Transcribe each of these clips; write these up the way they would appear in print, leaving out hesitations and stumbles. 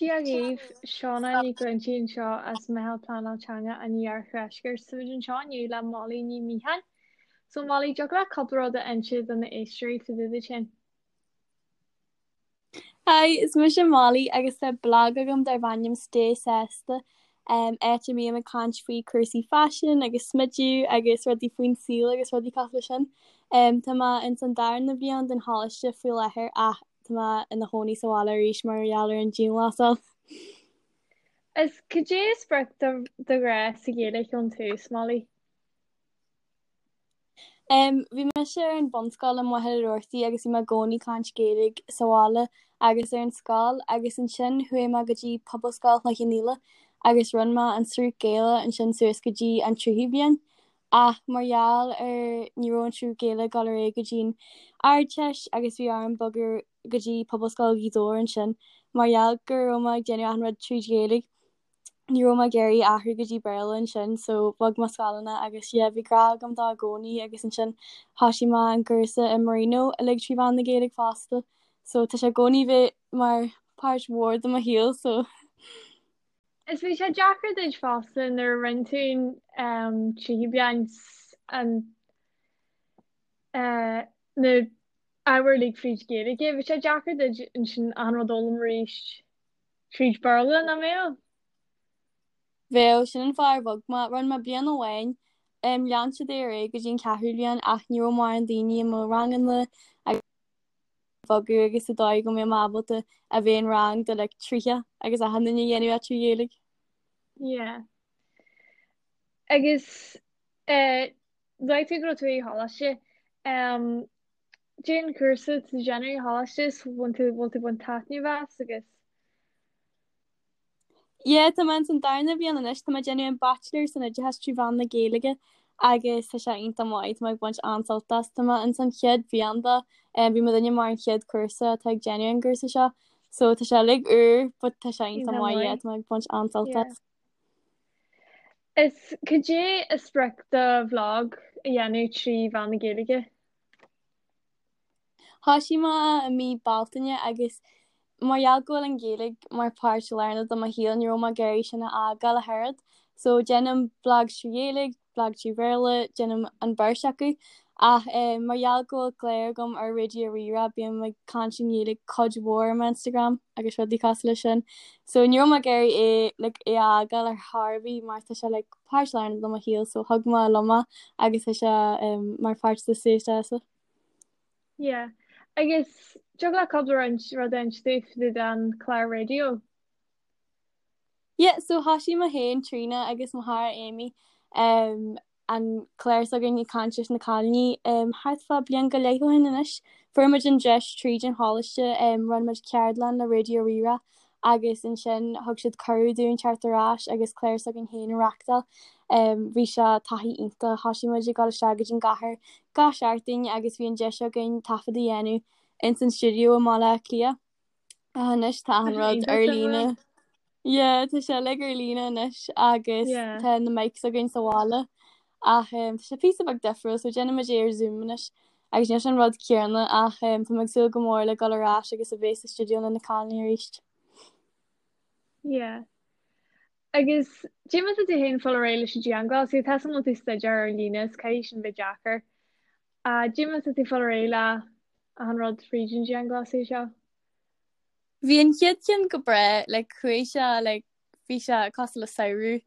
Dia dhaoibh, Shauna Ní Ghlintigh anseo as Meitheal Pleanáil Teanga an Iardheiscirt. Táimid anseo inniu le Molly Ní Mhiacháin. So Molly, dtiocfadh leat cúpla rud a inse do na éisteoirí fá dtaobh duit féin? Hi, is mise Molly agus tá blag agam darb ainm Stay Sásta, áit a mbím ag caint faoi cúrsaí faisin agus smideadh agus rudaí faoin saol agus rudaí cosúil leis sin. Tá mé ins an darna bhliain den choláiste faoi láthair ach Tá mé ina chónaí sa bhaile arís mar gheall ar an dianghlasáil. Is cad é a spreag do ghrá sa Ghaeilge ón tús, Molly? Um, bhí mise ar an bhunscoil i Machaire Rabhartaigh agus bhí mé i gcónaí ag caint Gaeilge sa bhaile agus ar an scoil agus ansin chuaigh mé go dtí Pobalscoil Chloich Cheann Fhaola agus rinne mé an sruth Gaelach ansin suas go dtí an tríú bliain. Ach mar gheall ar ní raibh an sruth Gaelach ag dul ar aghaidh go dtí an Ardteist agus bhí orm bogadh go dtí Pobalscoil Ghaoth Dobhair ansin mar gheall go raibh mé ag déanamh achan rud tríd Ghaeilge ní raibh mé ag iarraidh athrú go dtí Béarla ansin so bhog mé scoileanna agus yeah bhí grá agam dó i gcónaí agus ansin thosaigh mé an cúrsa i Marino uilig trí mheán na Gaeilge fosta so tá sé i gcónaí bheith mar páirt mhór de mo shaol so Is bhí sé deacair duit fosta nuair a rinne tú an tríú bliain an na ábhair uilig fríd Ghaeilge. Bhí sé deacair duit ansin achan rud a fhoghlaim arís tríd Béarla, nach mbeadh? Bheadh, sin an fáth ar bhog mé. Rinne mé bliain amháin, lean siad é ar aghaidh go dtí an ceathrú bliain ach ní raibh mórán daoine i mo ranganna agus bogadh agus sa dóigh go mbeadh mé ábalta a bheith in rang de like 30 agus achan duine a dhéanamh é trí Ghaeilge. Yeah. Agus eh, luaigh tú go raibh tú i choláiste. Um, Cad é an cúrsa tú ag déanamh i choláiste is bhfuil tú bhfuil tú ag baint taitneamh as agus Yeah, tá mé ins an darna bhliain anois, tá mé ag déanamh an Bachelor san Oideachas trí mheán na Gaeilge agus tá sé iontach maith, tá mé ag baint an-sult as. Tá mé ins an chéad bhliain de, bhí muidinne mar an chéad cúrsa atá ag déanamh an gcúrsa seo, so tá sé uilig úr but tá sé iontach iontach maith, yeah, maith. tá mé ag baint an-sult Yeah. as. Is cad é a spreag do bhlag a dhéanamh trí mheán na Gaeilge? Thosaigh mé i mí Bealtaine agus mar gheall go bhfuil an Ghaeilge mar páirt lárnach de mo shaol ní raibh mé ag iarraidh sin a fhágáil ach oiread. So déanaim blag trí Ghaeilge, blag trí Bhéarla, déanaim an beirt acu. Ach mar gheall go bhfuil clár agam ar Raidió Rí-Rá bím ag caint i nGaeilge cuid mhór ar m'Instagram agus rudaí cosúil leis sin. So ní raibh mé ag iarraidh é like é a fhágáil ar chor ar bith mar tá sé like páirt lárnach de mo shaol so thug mé liom é agus tá sé mar pháirt de Stay Sásta. Yeah. Agus dtiocfadh leat cúpla roinnt rud a inse dúinn fá dtaobh den chlár raidió. Yeah, so thosaigh mé féin Tríona agus mo chara Amy um, an clár s'againn ag caint leis na cailíní um, thart fá bliain go leith ó shin anois. Fuair muid an deis tríd an choláiste, um, rinne muid ceardlann le Raidió Rí-Rá agus ansin thug siad cuireadh dúinn teacht ar ais agus clár s'againn féin a reachtáil. Bhí sé taithí iontach, thosaigh muid ag dul isteach go dtí an gcathair gach seachtain agus bhí an deis againn taifead a dhéanamh ins an stiúideo i mBaile Átha Cliath. Ach anois tá Tá an sé rud iontach ar suimiúil. líne. Yeah, tá sé uilig ar líne anois agus Yeah. tá na mics againn sa bhaile. Ach tá sé píosa beag difriúil so déanann muid é ar Zoom anois agus níl sé an rud céanna ach tá mé ag súil go mór le dul ar ais agus a bheith sa stiúideo le na cailíní arís. Yeah. Agus cad é mar tá tú féin ag fáil ar aghaidh leis an dianghlasáil, tá a fhios agam go bhfuil tú ag staidéar ar líne is caithfidh sin bheith deacair. Cad é mar tá tú ag fáil ar aghaidh le achan rud fríd an dianghlasáil seo. Bhí an chéad cheann go breá, like chuaigh sé like bhí sé cosúil le samhradh.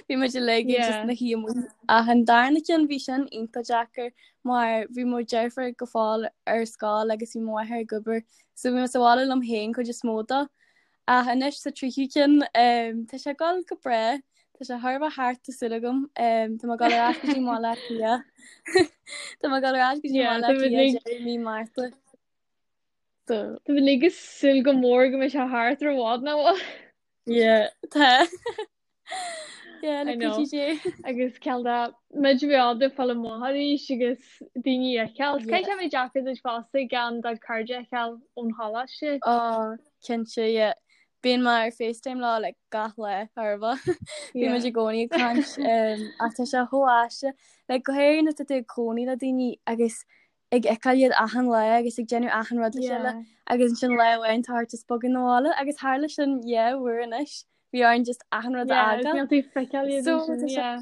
Bhí muid uilig ag just Yeah. na shuí amuigh. Ach an darna ceann bhí sin iontach deacair mar bhí mo dheirfiúr go fóill ar scoil agus bhí mo mháthair ag obair so bhí mé sa bhaile liom féin cuid is mó dó. Ach anois sa tríú ceann um, tá sé ag dul go breá. Tá sé chóir a bheith thart tá súil agam. Um, tá mé ag dul ar ais go dtí Baile Átha Cliath. Tá mé ag dul ar ais go dtí Yeah, Baile tá Átha muid Cliath uilig deireadh mí Márta. So tá muid uilig ag súil go mór go mbeidh sé thart ar bhfad nach bhfuil. Yeah, tá. Yeah, I le know. cuidiú Dé. Agus cineál de muid a bheith ábalta fáil amach arís agus daoine a fheiceáil. Yeah. Caithfidh sé bheith deacair duit fosta gan do chairde a fheiceáil ón choláiste. Oh, cinnte, yeah. Bíonn mé ar FaceTime leo like gach lá ar bith. Bíonn muid Yeah. i gcónaí ag caint um, ach tá sé chomh aisteach. Like, go háirithe nuair atá tú ag cónaí le daoine agus. Ag fheiceáil iad achan lá agus ag déanamh achan rud le chéile agus ansin lá amháin tá ort just bogadh 'na bhaile agus tharla sin dhá uair anois. Bhí orainn just achan rud a fhágáil. Níl tú ag feiceáil iad ansin, yeah.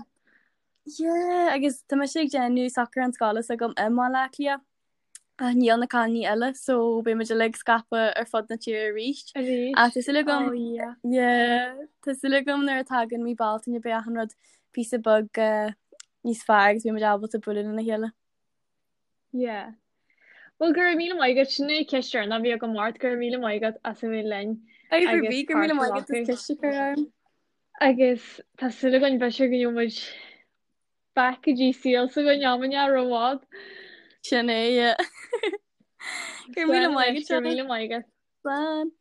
Yeah, agus tá mise ag déanamh socrúchán scoile s'agam i mBaile Átha Cliath ach níl na cailíní eile so beidh muid uilig scaipthe ar fud na tíre arís. Arís. Ach tá súil agam, oh yeah. Yeah, tá súil agam nuair a tagann mí Bealtaine beidh achan rud píosa beag uh, níos fearr agus beidh muid ábalta bualadh lena chéile. Yeah. Well go raibh míle maith agat, sin é ceist deireanach a bhí agam ort, go raibh míle maith agat as a bheith linn Agus agus go raibh míle maith agat as ceist a chur orm. Agus tá súil againn b'fhéidir go ngeobhaidh muid back go dtí saol s'againn am inteacht rómhaith. Sin é, yeah. Go raibh míle maith agat. Go raibh míle maith agat. Slán.